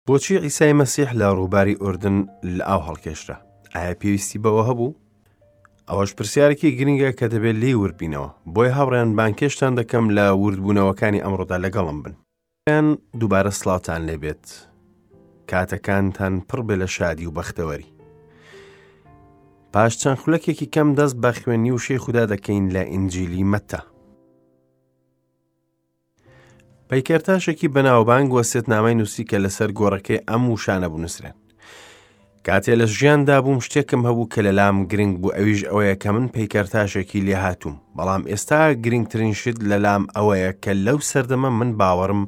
بۆچی عیسای مەسیح لە ڕووباری ئوردن لە ئاو هەڵکێشرا؟ ئایا پێویستی بەوە هەبوو؟ ئەوەش پرسیارێکی گرنگە کە دەبێت لێی وردبینەوە. بۆیە هاوڕێیان بانگهێشتان دەکەم لە وردبوونەوەکانی ئەمڕۆدا لەگەڵم بن. هاوڕێیان دووبارە سڵاوتان لێبێت. کاتەکانتان پڕ بێ لە شادی و بەختەوەری. پاش چەند خولەکێکی کەم دەست بە خوێندنی وشەی خودا دەکەین لە ئینجیلی مەتا. پەیکەرتاشێکی بەناوبانگ وەسێتنامەی نووسی کە لەسەر گۆڕەکەی ئەم وشانە بنووسرێن. کاتێ لە ژیاندا بووم شتێکم هەبوو کە لەلام گرنگ بوو ئەویش ئەوەیە کە من پەیکەرتاشێکی لێهاتووم بەڵام ئێستا گرنگترین شت لەلام ئەوەیە کە لەو سەردەمە من باوەڕم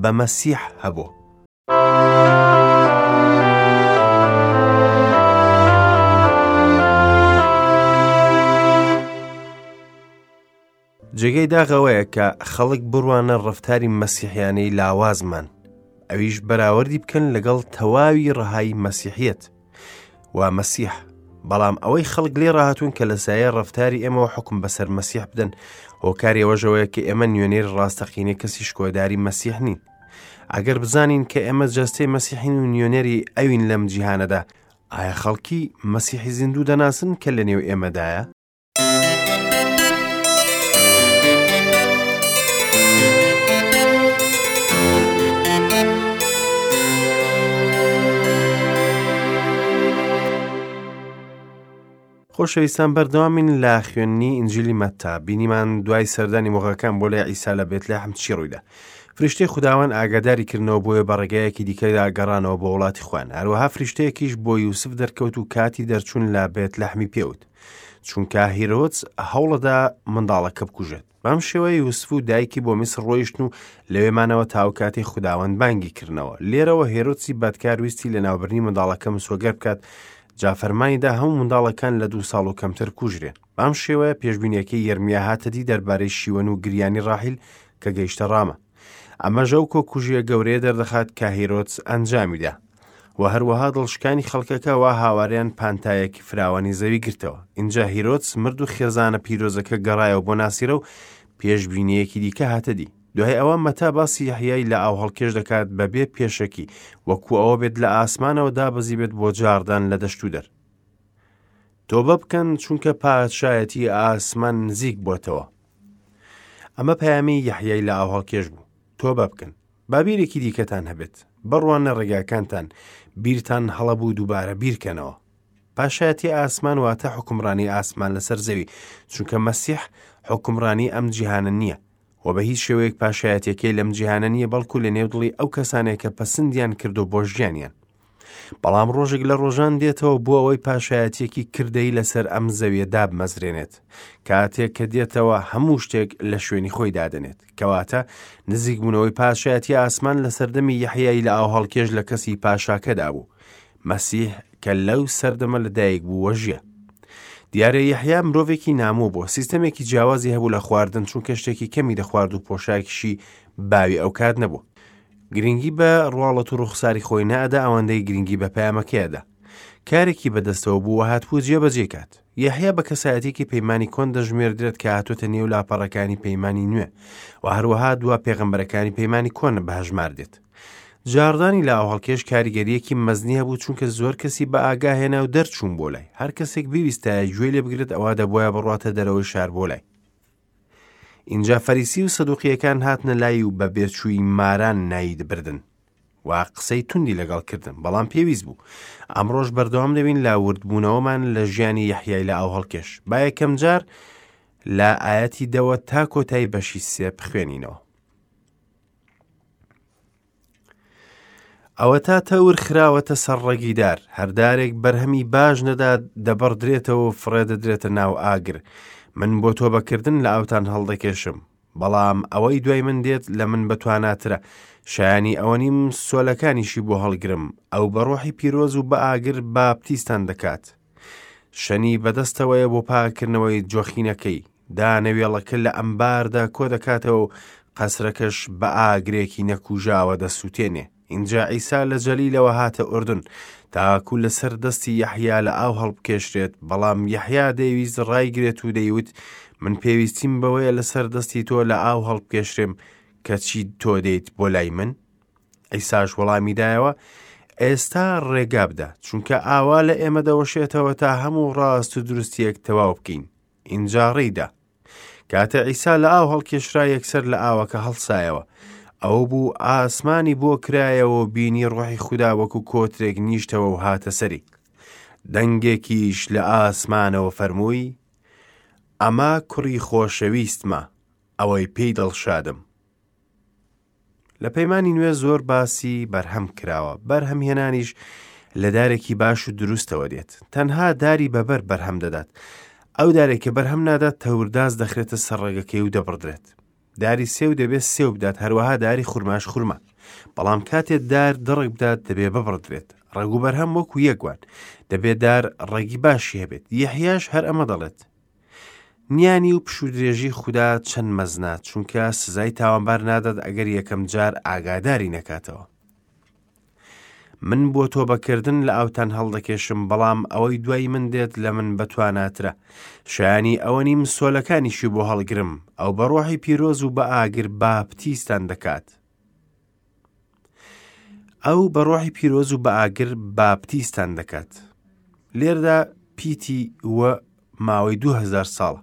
بە مەسیح هەبوو. جێگەی داخ ئەوەیە کە خەڵک بڕوانە ڕەفتاری مەسیحیانەی لاوازمان ئەویش بەراوردی بکەن لەگەڵ تەواوی ڕەهای مەسیحیەت و مەسیح بەڵام ئەوەی خەڵک لێ ڕاهاتوون کە لە سایە ڕەفتاری ئێمەوە حکم بەسەر مەسیح بدەن هۆکاری ئەوەشەوەیە کە ئێمە نوێنەری ڕاستەقینەی کەسی شکۆداری مەسیح نین ئەگەر بزانین کە ئێمە جەستەی مەسیحین و نوێنەری ئەوین لەم جیهانەدا ئایا خەڵکی مەسیحی زیندوو دەناسن کە لە نێو ئێمەدایە؟ خۆشەویستان بەردەوامین لە خوێندنی ئینجیلی مەتا بینیمان دوای سەردانی مۆغەکان بۆ لای عیسا لە بێتلەحم چی ڕوویدا فریشتەی خوداوەند ئاگاداری کردنەوە بۆیە بە ڕێگایەکی دیکەدا گەڕانەوە بۆ وڵاتی خۆیان هەروەها فریشتەیەکیش بۆ یوسف دەرکەوت و کاتی دەرچوون لە بێتلەحمی پێوت چونکە هیرۆدس هەوڵەدا منداڵەکە بکوژێت بەم شێوەیە یوسف و دایکی بۆ میسر ڕۆیشتن و لەوێ مانەوە تاو کاتی خوداوەند بانگی کردنەوە لێرەوە هێرۆدسی بەدکار ویستی لەناوبردنی منداڵەکە مسۆگەر بکات جا فەرمانی دا هەموو منداڵەکان لە دوو ساڵ و کەمتر کوژرێن بەم شێوەیە پێشبینیەکەی یەرمیا هاتە دی دەربارەی شیوەن و گریانی ڕاحیل کە گەیشتە ڕامە ئەمەش ئەو کۆکوژیە گەورەیە دەردەخات کە هیرۆدس ئەنجامیدا و هەروەها دڵشکانی خەڵکەکە وا هاواریان پانتایەکی فراوانی زەوی گرتەوە ئینجا هیرۆدس مرد و خێزانە پیرۆزەکە گەڕایەوە بۆ ناسیرە و پێشبینیەکی دیکە هاتە دی دوای ئەوە مەتا باسی یەحیای لە ئاو هەڵکێش دەکات بەبێ پێشەکی وەکو ئەوە بێت لە ئاسمانەوە دابەزی بێت بۆ جاڕدان لە دەشت و دەر تۆبە بکەن چونکە پادشایەتی ئاسمان نزیک بۆتەوە ئەمە پەیامی یەحیای لە ئاوهەڵکێش بوو تۆبە بکەن با بیرێکی دیکەتان هەبێت بڕوانە ڕێگاکانتان بیرتان هەڵە بوو دووبارە بیرکەنەوە پاشایەتی ئاسمان واتە حکومڕانی ئاسمان لەسەر زەوی چونکە مەسیح حکومڕانی ئەم جیهانە نییە و بە هیچ شێوەیەک پاشایەتەکەی لەم جیهانە نییە بەڵکو لە نێو دڵی ئەو کەسانێک کە پەسندیان کردو بۆ ژیانیان بەڵام ڕۆژێک لە ڕۆژان دێتەوە بۆ ئەوەی پاشایەتیەکی کردەی لەسەر ئەم زەویە دابمەزرێنێت کاتێک کە دێتەوە هەموو شتێک لە شوێنی خۆی دادەنێت کەواتە نزیکبوونەوەی پاشایەتی ئاسمان لە سەردەمی یەحیای لە ئاوهەڵکێش لە کەسی پاشاکەدا بوو مەسیح کە لەو سەردەمە لەدایک بوو وەژیە دیارە یەحیا مرۆڤێکی نامۆ بوو سیستەمێکی جیاوازی هەبوو لە خواردن چونکە شتێکی کەمی دەخوارد و پۆشاکیشی باوی ئەو کات نەبوو گرنگی بە ڕواڵەت و ڕوخساری خۆی نەئەدا ئەوەندەی گرنگی بە پەیامەکەی ئەدا. کارێکی بەدەستەوە بوو و هاتبوو جێبەجێی کات. یەحیا بە کەسایەتیەکی پەیمانی کۆن دەژمێردرێت کە هاتۆتە نێو لاپەڕەکانی پەیمانی نوێ و هەروەها دوا پێغەمبەرەکانی پەیمانی کۆن بە هەژمار دێت. جاڕدانی لاوهەڵکێش کاریگەریەکی مەزنی هەبوو چونکە زۆر کەسی بە ئاگا هێنا و دەرچوون بۆ لای. هەر کەسێک بیویستایە گوێی لێ بگرێت ئەوا دەبوایە بڕواتە دەرەوەی شار بۆ لای. ئینجا فەریسی و سەدوقیەکان هاتنە لای و بە بێچووی ماران ناوی بردن و قسەی توندی لەگەڵ کردن بەڵام پێویست بوو ئەمڕۆژ بەردەوام دەبین لە وردبوونەوەمان لە ژیانی یەحیای لە ئاو هەڵکێش با یەکەم جار لە ئاەتی دەوە تا کۆتایی بەشی سێ بخوێنینەوە ئەوەتا تەور خراوەتە سەر ڕەگی دار، هەر دارێک بەرهەمی باش نەدات دەبڕدرێتەوە و فڕێدەدرێتە ناو ئاگر. من بۆ تۆبەکردن لە ئاوتان هەڵدەکێشم، بەڵام ئەوەی دوای من دێت لە من بەتواناترە، شایانی ئەوە نیم سۆلەکانیشی بۆ هەڵگرم، ئەو بە ڕۆحی پیرۆز و بە ئاگر باپتیستان دەکات. شەنی بەدەستەوەیە بۆ پاککردنەوەی جۆخینەکەی، دانەوێڵەکە لە ئەمباردا کۆدەکاتەوە و قەسرەکەش بە ئاگرێکی نەکوژاوە دەسووتێنێ. ئینجا عیسا لە جەلیلەوە هاتە ئوردون، تاکو لەسەر دەستی یەحیا لە ئاو هەڵبکێشرێت، بەڵام یەحیا دەیویست ڕایگرێت و دەیوت، من پێویستیم بەوەیە لەسەر دەستی تۆ لە ئاو هەڵبکێشرێم، کەچی تۆ دێیت بۆ لای من؟ عیساش وەڵامی دایەوە، ئێستا ڕێگا بدە، چونکە ئاوا لە ئێمە دەوەشێتەوە تا هەموو ڕاست و دروستیەک تەواو بکەین. ئینجا ڕێیدا. کاتێ عیسا لە ئاو هەڵکێشرا یەکسەر لە ئاوەکە هەڵسایەوە. ئەو بوو ئاسمانی بۆ کرایەوە و بینی ڕۆحی خودا وەکو کۆترێک نیشتەوە و هاتە سەری. دەنگێکیش لە ئاسمانەوە فەرمووی، ئەمە کوڕی خۆشەویستمە، ئەوەی پێی دڵشادم. لە پەیمانی نوێ زۆر باسی بەرهەم کراوە، بەرهەمهێنانیش لە دارێکی باش و دروستەوە دێت. تەنها داری بەبەر بەرهەم دەدات. ئەو دارێک کە بەرهەم نادات تەورداز دەخرێتە سەر ڕەگەکەی و دەبڕدرێت. داری سێو دەبێت سێو بدات، هەروەها داری خورماش خورما. بەڵام کاتێ دار دڕک بدات دەبێ ببڕدرێت. ڕەگ و بەرهەم وەکو یەک وان. دەبێ دار ڕەگی باشی هەبێت. یەحیاش هەر ئەمە دەڵێت. نیانی و پشوودرێژی خودا چەند مەزنە، چونکە سزای تاوانبار نادات ئەگەر یەکەم جار ئاگاداری نەکاتەوە. من بۆ تۆبەکردن لە ئاوتان هەڵدەکێشم، بەڵام ئەوەی دوای من دێت لە من بەتواناترە. شایانی ئەوە نیم سۆلەکانیشی بۆ هەڵگرم. ئەو بە ڕۆحی پیرۆز و بە ئاگر باپتیستان دەکات. ئەو بە ڕۆحی پیرۆز و بە ئاگر باپتیستان دەکات. لێردا پیتی و ماوەی 2000 ساڵە.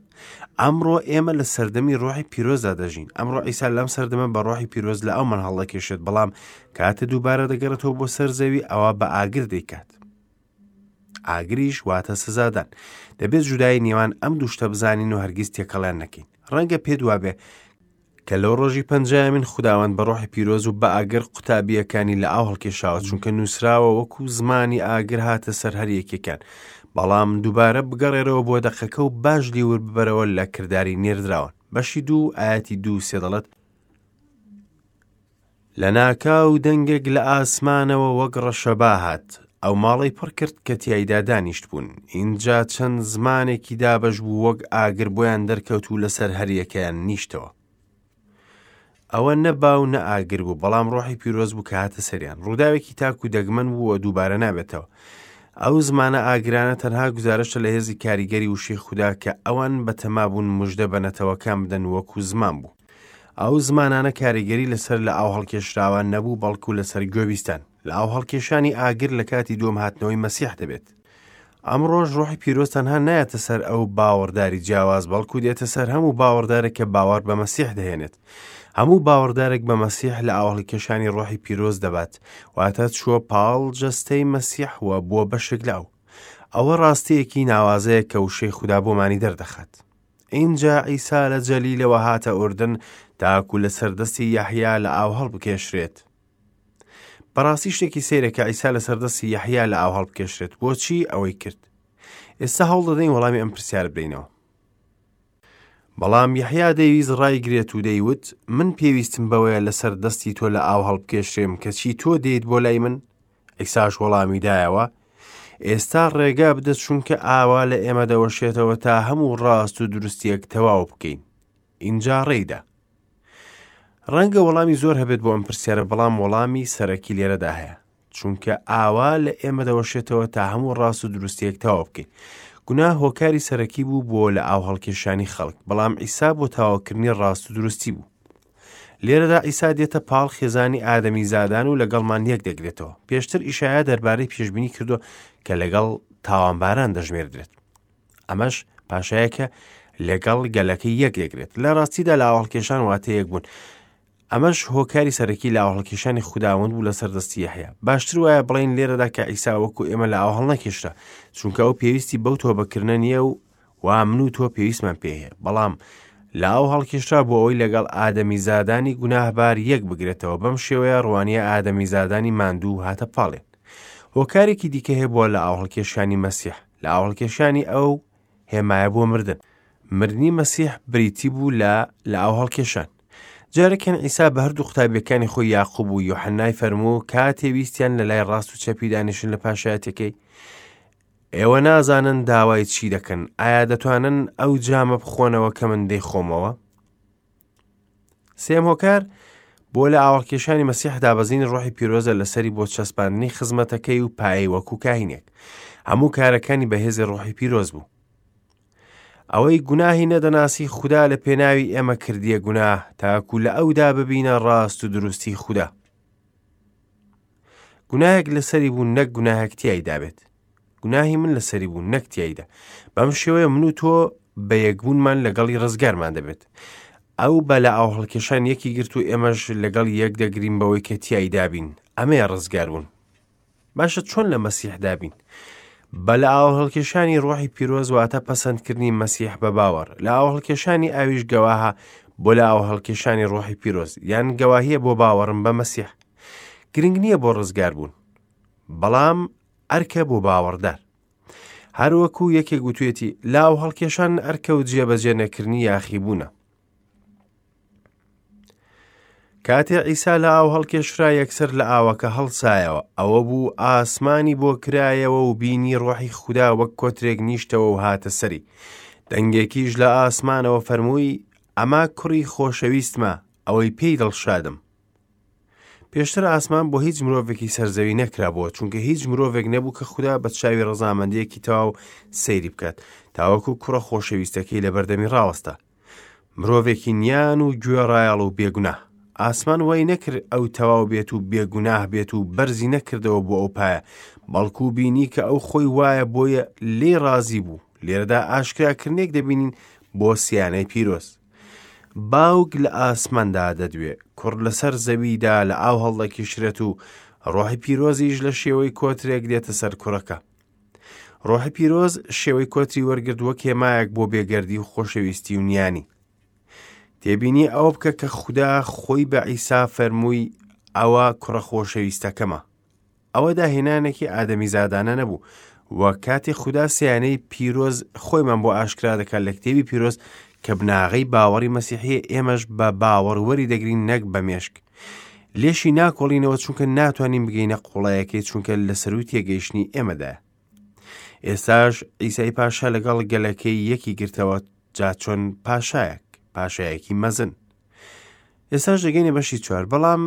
ئەمڕۆ ئێمە لە سەردەمی ڕۆحی پیرۆزدا دەژین. ئەمڕۆ عیسا لەم سەردەمە بە ڕۆحی پیرۆز لە ئەومان هەڵدەکێشێت، بەڵام کاتێ دووبارە دەگەڕێتەوە بۆ سەر زەوی ئەوە بە ئاگر دەیکات. ئاگریش واتە سزادان. دەبێت جودایی نێوان ئەم دوو شتە بزانین و هەرگیز تێکەڵیان نەکەین. ڕەنگە پێت وابێ کە لەو ڕۆژی پەنجایەمین خوداوەند بە ڕۆحی پیرۆز و بە ئاگر قوتابییەکانی لە ئاو هەڵکێشاوە، چونکە نووسراوە وەکو زمانی ئاگر هاتە سەر هەر یەکێکیان. بەڵام دووبارە بگەڕێرەوە بۆ دەقەکە و باش لیور ببەرەوە لە کرداری نێردراوان. بەشی دوو ئایەتی دوو سێ دەڵێت، لەناکاو دەنگێک لە ئاسمانەوە وەک ڕەشەبا هات، ئەو ماڵەی پڕ کرد کە تیایدا دانیشتبوون. ئینجا چەند زمانێکی دابەش بوو وەک ئاگر بۆیان دەرکەوت و لەسەر هەریەکەیان نیشتەوە. ئەوە نە با و نە ئاگر بوو، بەڵام ڕۆحی پیرۆز بوو کە هاتە سەریان. ڕووداوێکی تاک و دەگمەن بوو و دووبارە نابێتەوە. ئەو زمانە ئاگرانە تەنها گوزارشتە لە هێزی کاریگەری وشەی خودا کە ئەوان بەتەما بوون مژدە بە نەتەوەکان بدەن وەکو زمان بوو. ئەو زمانانە کاریگەری لەسەر لە ئاو هەڵکێشراوان نەبوو بەڵکو لەسەر گوێبیستان. لە ئاو هەڵکێشانی ئاگر لە کاتی دووەم هاتنەوەی مەسیح دەبێت. ئەمڕۆش ڕۆحی پیرۆز تەنها نایەتە سەر ئەو باوەڕداری جیاواز بەڵکو دێتە سەر هەموو باوەڕدارێک کە باوەڕ بە مەسیح دەهێنێت. هەموو باوەڕدارێک بە مەسیح لە ئاوهەڵکێشانی ڕۆحی پیرۆز دەبات، واتە چووە پاڵ جەستەی مەسیح و بووە بەشێک لە ئەو. ئەوە ڕاستییەکی ناوازەیە کە وشەی خودا بۆمانی دەردەخات. ئینجا عیسا لە جەلیلەوە هاتە ئوردن تاکو لەسەر دەستی یەحیا لە ئاو هەڵبکێشرێت. بەڕاستی شتێکی سەیرە کە عیسا لەسەر دەستی یەحیا لە ئاو هەڵبکێشرێت. بۆچی ئەوەی کرد؟ ئێستا هەوڵ دەدەین وەڵامی ئەم پرسیارە بدەینەوە. بەڵام یەحیا دەیویست ڕایگرێت و دەیوت، من پێویستم بەوەیە لەسەر دەستی تۆ لە ئاو هەڵبکێشرێم، کەچی تۆ دێیت بۆ لای من؟ عیساش وەڵامی دایەوە، ئێستا ڕێگا بدە چونکە ئاوا لە ئێمە دەوەشێتەوە تا هەموو ڕاست و دروستیەک تەواو بکەین. ئینجا ڕێیدا. ڕەنگە وەڵامی زۆر هەبێت بۆ ئەم پرسیارە، بەڵام وەڵامی سەرەکی لێرەدا هەیە. چونکە ئاوا لە ئێمە دەوەشێتەوە تا هەموو ڕاست و دروستیەک تەواو بکەین. گوناه هۆکاری سەرەکی بوو بۆ لە ئاو هەڵکێشانی خەڵک، بەڵام عیسا بۆ تەواوکردنی ڕاست و دروستی بوو. لێرەدا عیسا دێتە پاڵ خێزانی ئادەمیزادان و لەگەڵمان یەک دەگرێتەوە. پێشتر ئیشایا دەربارەی پێشبینی کردووە کە لەگەڵ تاوانباران دەژمێردرێت. ئەمەش پاشایەکە لەگەڵ گەلەکەی یەک دەگرێت. لە ڕاستیدا لاوەڵکێشان واتە یەک بوون. ئەمەش هۆکاری سەرەکی لاوەڵکێشانی خوداوەند بوو لەسەر دەستی یەحیا. باشتر وایە بڵێین لێرەدا کە عیسا وەکو ئێمە لە ئاو هەڵنەکێشرا، چونکە ئەو پێویستی بەو تۆبەکردنە نییە و وا من و تۆ پێویستمان پێ هەیە، بەڵام لە ئاو هەڵکێشرا بۆ ئەوەی لەگەڵ ئادەمیزادانی گوناهبار یەک بگرێتەوە، بەم شێوەیە ڕوانیە ئادەمیزادانی ماندوو هاتە پاڵێن. هۆکارێکی دیکە هەیە بۆ لە ئاو هەڵکێشانی مەسیح، لە ئاو هەڵکێشانی ئەو هێمایە بۆ مردن. مردنی مەسیح بریتی بوو لە لە ئاو هەڵکێشان. جارێکیان عیسا بە هەردوو قوتابیەکانی خۆی یاقوب و یۆحەنای فەرموو کاتێ ویستیان لە لای ڕاست و چەپی دانیشن لە پاشایەتەکەی، ئێوە نازانن داوای چی دەکەن، ئایا دەتوانن ئەو جامە بخۆنەوە کە من دەیخۆمەوە؟ سێم هۆکار بۆ لە ئاواڵکێشانی مەسیح دابەزینی ڕۆحی پیرۆزە لەسەری بۆ چەسپاندنی خزمەتەکەی و پایەی وەکو کاهینێک. هەموو کارەکانی بەهێزی ڕۆحی پیرۆز بوو. ئەوەی گوناهی نەدەناسی خودا لە پێناوی ئێمە کردیە گوناه تاکو لە ئەودا ببینە ڕاست و دروستی خودا. گوناهێک لەسەری بوو نەک گوناهێک تیایدا بێت. گوناهی من لەسەری بوو نەک تیایدا. بەم شێوەیە من و تۆ بە یەکبوونمان لەگەڵی ڕزگارمان دەبێت. ئەو بە لە ئاوهەڵکێشان یەکی گرت و ئێمەش لەگەڵ یەک دەگرین بەوەی کە تیایدا بین. ئەمەیە ڕزگاربوون. باشە چۆن لە مەسیحدا بین؟ بە لە ئاوهەڵکێشانی ڕۆحی پیرۆز واتە پەسەندکردنی مەسیح بە باوەڕ. لە ئاوهەڵکێشانی ئاویش گەواهە بۆ لە ئاوهەڵکێشانی ڕۆحی پیرۆز یان گەواهیە بۆ باوەڕم بە مەسیح. گرنگ نییە بۆ ڕزگاربوون، بەڵام ئەرکە بۆ باوەڕدار. هەروەکو یەکێک وتوێتی لاو هەڵکێشان ئەرکە و جێبەجێ نەکردنی یاخیبوونە. کاتێ عیسا لە ئاو هەڵکێشرا یەکسەر لە ئاوەکە هەڵسایەوە ئەوە بوو ئاسمانی بۆ کرایەوە و بینی ڕۆحی خودا وەک کۆترێک نیشتەوە و هاتە سەری دەنگێکیش لە ئاسمانەوە فەرمووی ئەمە کوڕی خۆشەویستمە ئەوەی پێی دڵشادم پێشتر ئاسمان بۆ هیچ مرۆڤێکی سەرزەوی نەکرابووە چونکە هیچ مرۆڤێک نەبوو کە خودا بە چاوی ڕەزامەندیەکی تەواو سەیری بکات تاوەکو کوڕە خۆشەویستەکەی لە بەردەمی ڕاوەستا مرۆڤێکی نیان و گوێڕایەڵ و بێگوناه ئاسمان وای نەکرد ئەو تەواو بێت و بێگوناه بێت و بەرزی نەکردەوە بۆ ئەو پایە بەڵکو بینی کە ئەو خۆی وایە بۆیە لێ ڕازی بوو لێرەدا ئاشکراکردنێک دەبینین بۆ سیانەی پیرۆز باوک لە ئاسماندا دەدوێ، کوڕ لەسەر زەویدا لە ئاو هەڵدەکیشرێت و ڕۆحی پیرۆزیش لە شێوەی کۆترێک دێتە سەر کوڕەکە. ڕۆحی پیرۆز شێوەی کۆتری وەرگرت وەک هێمایەک بۆ بێگەردی و خۆشەویستی و نیانی. تێبینی ئەوە بکە کە خودا خۆی بە عیسا فەرمووی ئەوە کوڕە خۆشەویستەکەمە. ئەوە داهێنانێکی ئادەمیزادانە نەبوو و کاتێ خودا سیانەی پیرۆز خۆیمان بۆ ئاشکرا دەکات لە کتێبی پیرۆز کە بناغەی باوەڕی مەسیحیە ئێمەش بە باوەڕ وەری دەگرین نەک بە مێشک لێشی ناکۆڵینەوە چونکە ناتوانین بگەینە قوڵایەکەی چونکە لە سەروی تێگەیشتنی ئێمەدایە ئێستاش ئیسای پاشا لەگەڵ گەلەکەی یەکی گرتەوە جا چۆن پاشایەک پاشایەکی مەزن ئێستاش دەگەینە بەشی چوار بەڵام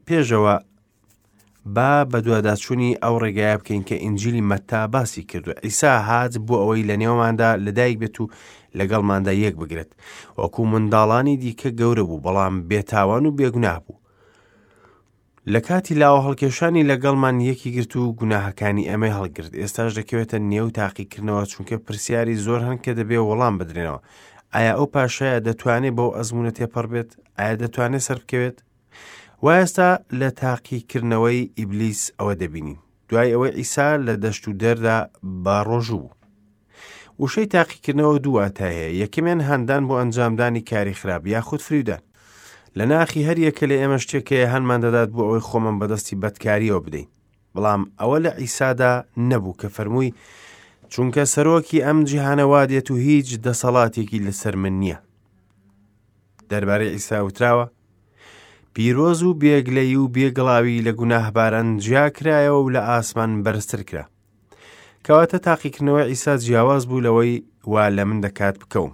پێشەوە با بەدواداچوونی ئەو ڕێگایە بکەین کە ئینجیلی مەتا باسی کردووە. عیسا هات بۆ ئەوەی لە نێوماندا لەدایک بێت و لەگەڵماندا یەک بگرێت. وەکو منداڵانی دیکە گەورە بوو، بەڵام بێتاوان و بێگوناه بوو. لە کاتی لاوە هەڵکێشانی لەگەڵمان یەکی گرت و گوناهەکانی ئێمەی هەڵگرت. ئێستاش دەکەوێتە نێو تاقیکردنەوە چونکە پرسیاری زۆر هەن کە دەبێ وەڵام بدرێنەوە. ئایا ئەو پاشایە دەتوانێت بەو ئەزموونە تێپەڕ بێت؟ ئایا دەتوانێت سەربکەوێت؟ وا ئێستا لە تاقیکردنەوەی ئیبلیس ئەوە دەبینین دوای ئەوەی عیسا لە دەشت و دەردا بە ڕۆژوو بوو. وشەی تاقیکردنەوە دوو واتای هەیە یەکەمیان هاندان بۆ ئەنجامدانی کاری خراپ یاخود فریودان لە ناخی هەر یەکە لە ئێمە شتێک هەیە هانمان دەدات بۆ ئەوەی خۆمان بەدەستی بەدکاریەوە بدەین بەڵام ئەوە لە عیسادا نەبوو کە فەرمووی چونکە سەرۆکی ئەم جیهانە وا دێت و هیچ دەسەڵاتێکی لەسەر من نییە دەربارەی عیسا وتراوە پیرۆز و بێگلەیی و بێگڵاوی لە گوناهباران جیا کرایەوە و لە ئاسمان بەرزتر کرا. کەواتە تاقیکردنەوەی عیسا جیاواز بوو لەوەی وا لە من دەکات بکەوم.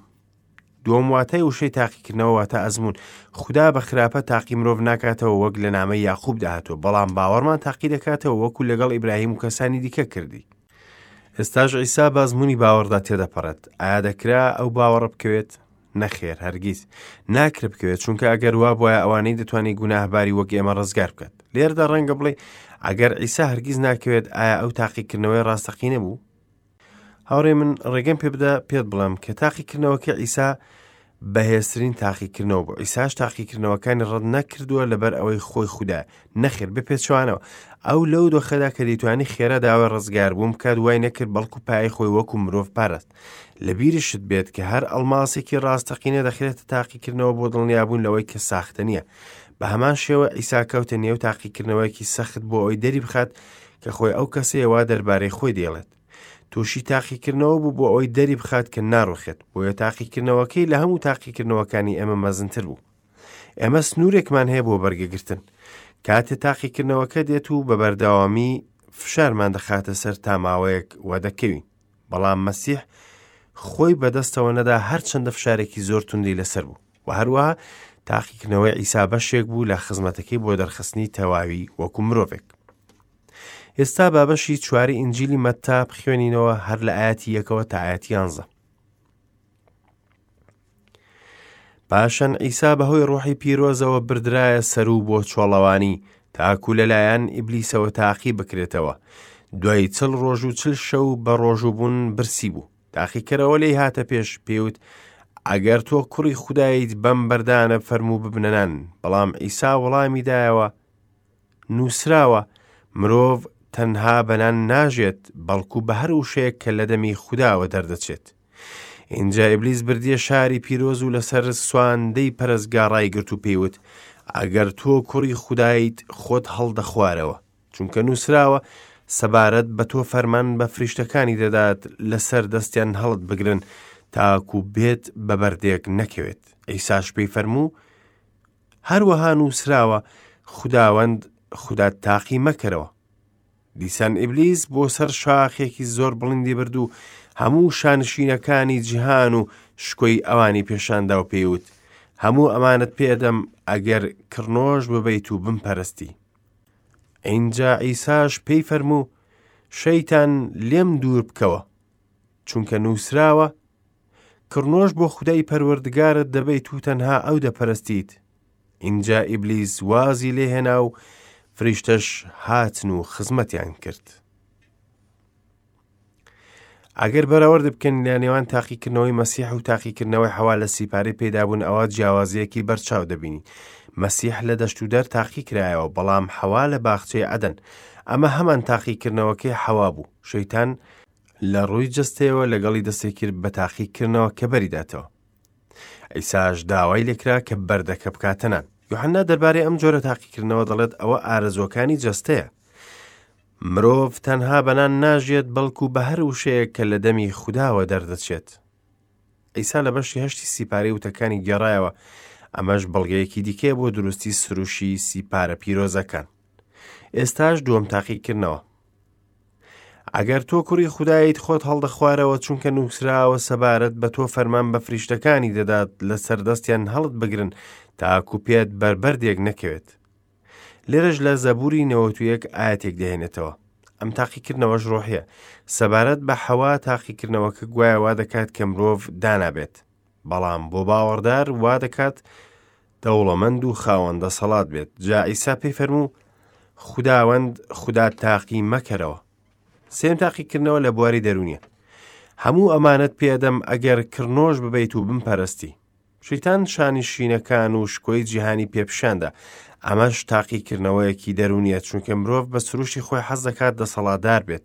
دووەم واتای وشەی تاقیکردنەوە واتە ئەزموون. خودا بە خراپە تاقی مرۆڤ ناکاتەوە وەک لە نامەی یاقوبدا هاتووە، بەڵام باوەڕمان تاقی دەکاتەوە وەکو لەگەڵ ئیبراهیم و کەسانی دیکە کردی. ئێستاش عیسا بە ئەزموونی باوەڕدا تێدەپەڕێت. ئایا دەکرا ئەو باوەڕە بکەوێت؟ نەخێر هەرگیز ناکرێت بکەوێت چونکە ئەگەر وا بواە ئەوانەی دەتوانانی گوناهباری وەک ئێمە ڕزگار بکات لێرەدا ڕەنگە بڵێ ئەگەر عیسا هەرگیز ناکەوێت ئایا ئەو تاقیکردنەوەی ڕاستەقینە بوو هاوڕێ من ڕێگەم پێ بدە پێت بڵێم کە تاقیکردنەوەکە عیسا بەهێزترین تاقیکردنەوە بوو عیساش تاقیکردنەوەکانی ڕەت نەکردووە لەبەر ئەوەی خۆی خودا نەخێر بە پێچوانەوە ئەو لەو دۆخەدا کە دەیتوانی خێرا داوای ڕزگاربوون بکات وای نەکرد بەڵکو پای خۆی وەکو مرۆڤ پاراست لە بیرشت بێت کە هەر ئەڵماسێکی ڕاستەقینە دەخرێتە تاقیکردنەوە بۆ دڵنیابوون لەوەی کە ساختە نییە بە هەمان شێوە عیسا کەوتە نێو تاقیکردنەوەیەکی سەخت بۆ ئەوەی دەری بخات کە خۆی ئەو کەسەیە وا دەربارەی خۆی دەیڵێت تووشی تاقیکردنەوە بوو بۆ ئەوەی دەری بخات کە ناڕوخێت بۆیە تاقیکردنەوەکەی لە هەموو تاقیکردنەوەکانی ئێمە مەزنتر بوو ئێمە سنوورێکمان هەیە بۆ بەرگەگرتن کاتێ تاقیکردنەوەکە دێت و بە بەردەوامی فشارمان دەخاتە سەر تا ماوەیەک وە دەکەوین بەڵام مەسیح خۆی بەدەستەوە نەدا هەرچەندە فشارێکی زۆر توندی لەسەر بوو و هەروەها تاقیکردنەوەی عیسا بەشێک بوو لە خزمەتەکەی بۆ دەرخستنی تەواوی وەکو مرۆڤێک ئێستا بابەشی چواری ئینجیلی مەتا بخوێنینەوە هەر لە ئاەتی یەکەوە تا ئاەتی یانزە پاشان عیسا بەهۆی ڕۆحی پیرۆزەوە بردرایە سەرو بۆ چۆڵەوانی. تاکو لەلایەن ئیبلیسەوە تاقی بکرێتەوە. دوای چل ڕۆژ و چل شەو بە ڕۆژووبوون برسی بوو. تاقیکەرەوە لێی هاتە پێش، پێی وت، ئەگەر تۆ کوڕی خودایت بەم بەردانە فەرموو ببنە نان. بەڵام عیسا وەڵامی دایەوە، نووسراوە، مرۆڤ تەنها بە نان ناژێت، بەڵکو بە هەر وشەیەک کە لە دەمی خوداوە دەردەچێت. ئینجا ئیبلیس بردیە شاری پیرۆز و لەسەر سواندەی پەرستگا ڕایگرت و پێی وت، ئەگەر تۆ کوڕی خودایت خۆت هەڵدەخوارەوە، چونکە نووسراوە، سەبارەت بە تۆ فەرمان بە فریشتەکانی دەدات لەسەر دەستیان هەڵت بگرن تاکو بێت بە بەردێک نەکەوێت. عیساش پێی فەرموو، هەروەها نووسراوە، خوداوەند خودات تاقی مەکەرەوە. دیسان ئیبلیس بۆ سەر شاخێکی زۆر بڵندی برد و هەموو شانشینەکانی جیهان و شکۆی ئەوانی پێشاندا و پێیوت هەموو ئەمانت پێدەم ئەگەر کڕنۆش ببەیت و بمپەرستی. ئینجا عیساش پێی فەرموو شەیتان لێم دوور بکەوە، چونکە نووسراوە کڕنۆش بۆ خودای پەروەردگارت دەبەیت و تەنها ئەو دەپەرستیت. ئینجا ئیبلیس وازی لێهێنا و فریشتەش هاتن و خزمەتیان کرد. ئەگەر بەراورد بکەن لە نێوان تاقیکردنەوەی مەسیح و تاقیکردنەوەی حەوا لە سیپارەی پەیدابوون ئەوە جیاوازیەکی بەرچاو دەبینی. مەسیح لە دەشت و دەر تاقی کرایەوە بەڵام حەوا لە باخچەی عەدەن. ئەمە هەمان تاقیکردنەوەکەی حەوا بوو. شەیتان لە ڕووی جەستەیەوە لەگەڵی دەستی کرد بە تاقیکردنەوە کە بەریداتەوە. عیساش داوای لێکرا کە بەردەکە بکاتە نان. یوحەنا دەربارەی ئەم جۆرە تاقیکردنەوە دەڵێت ئەوە ئارەزووەکانی جەستەیە. مرۆڤ تەنها بە نان ناژیێت بەڵکو بە هەر وشەیەک کە لە دەمی خوداوە دەردەچێت. عیسا لە بەشی هەشتی سیپارەی وتەکانی گێڕایەوە، ئەمەش بەڵگەیەکی دیکەیە بۆ دروستی سروشی سیپارە پیرۆزەکان. ئێستاش دووەم تاقیکردنەوە. ئەگەر تۆ کوڕی خودایت خۆت هەڵدەخوارەوە چونکە نووسراوە سەبارەت بە تۆ فەرمان بە فریشتەکانی دەدات لەسەر دەستیان هەڵت بگرن تاکو پێت بەر بەردێک نەکەوێت. لێرەش لە زەبوری 91 ئاەتێک دەهێنێتەوە. ئەم تاقیکردنەوەش ڕۆحیە. سەبارەت بە حەوا تاقیکردنەوەکە گوایە وا دەکات کە مرۆڤ دانا بێت. بەڵام بۆ باوەڕدار وا دەکات دەوڵەمەند و خاوەن دەسەڵات بێت. جا عیسا پێی فەرموو، خوداوەند خودات تاقی مەکەرەوە. سێم تاقیکردنەوە لە بواری دەروونیە. هەموو ئەمانەت پێدەم ئەگەر کڕنۆش ببەیت و بمپەرستی. شەیتان شانشینەکان و شکۆی جیهانی پێپشاندا. ئەمەش تاقیکردنەوەیەکی دەروونیە چونکە مرۆڤ بە سروشتی خۆی حەز دەکات دەسەڵاتدار بێت.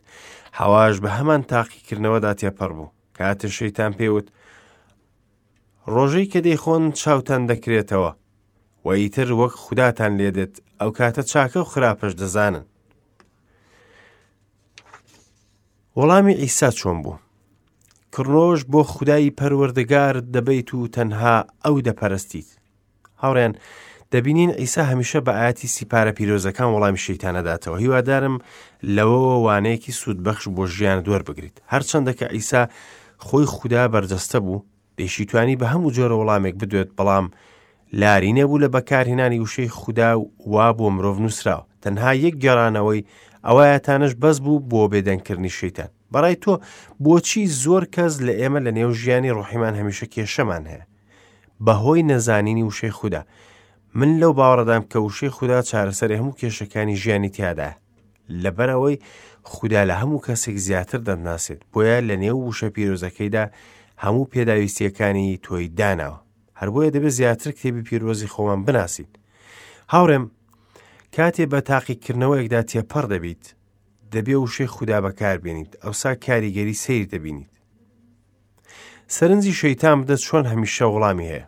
حەواش بە هەمان تاقیکردنەوەدا تێپەڕ بوو. کاتێ شەیتان پێوت ڕۆژەی کە دەیخۆن چاوتان دەکرێتەوە و ئیتر وەک خوداتان لێدێت ئەو کاتە چاکە و خراپەش دەزانن. وەڵامی عیسا چۆن بوو؟ کڕنۆش بۆ خودای پەروەردگارت دەبەیت و تەنها ئەو دەپەرستیت. هاوڕێن دەبینین عیسا هەمیشە بە ئاەتی سیپارە پیرۆزەکان وەڵامی شەیتانەداتەوە هیوادارم لەوەوە وانەیەکی سوودبەخش بۆ ژیان دووەربگریت هەرچەندە کە عیسا خۆی خودا بەرجەستە بوو دەیشیتوانی بە هەموو جۆرە وەڵامێک بدوێت بەڵام لاری نەبوو لە بەکارهێنانی وشەی خودا و وا بۆ مرۆڤ نووسراوە تەنها یەک گێڕانەوەی ئەوایەتانەش بەس بوو بۆ بێدەنگکردنی شەیتان بەڕای تۆ بۆچی زۆر کەس لە ئێمە لە نێو ژیانی ڕۆحیمان هەمیشە کێشەمان هەیە بەهۆی نەزانینی وشەی خودا من لەو باوەڕدام کە وشەی خودا چارەسەری هەموو کێشەکانی ژیانی تیادایە لەبەرئەوەی خودا لە هەموو کەسێک زیاتر دەتناسێت بۆیە لە نێو وشە پیرۆزەکەیدا هەموو پێداویستیەکانی تۆی داناوە هەر بۆیە دەبێت زیاتر کتێبی پیرۆزی خۆمان بناسین هاوڕێم کاتێ بە تاقیکردنەوەیەکدا تێپەڕ دەبیت دەبێ وشەی خودا بەکاربێنیت ئەوسا کاریگەری سەیر دەبینیت سەرنجی شەیتان بدە چۆن هەمیشە وەڵامی هەیە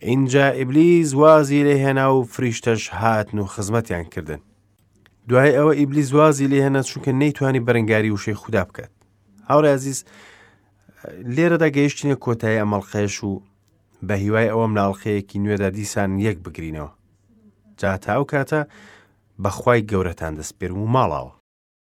ئینجا ئیبلیس وازی لێ هێنا و فریشتەش هاتن و خزمەتیان کردن دوای ئەوە ئیبلیس وازی لێ هێنا چونکە نەیتوانی بەرەنگاری وشەی خودا بکات هاوڕێ عزیز لێرەدا گەیشتینە کۆتایی ئەمەڵقەیەش و بە هیوای ئەوەم لە ئەڵلقەیەکی نوێدا دیسان یەک بگرینەوە جا تا ئەو کاتە بەخوای گەورەتان دەسپێرم و ماڵاوە.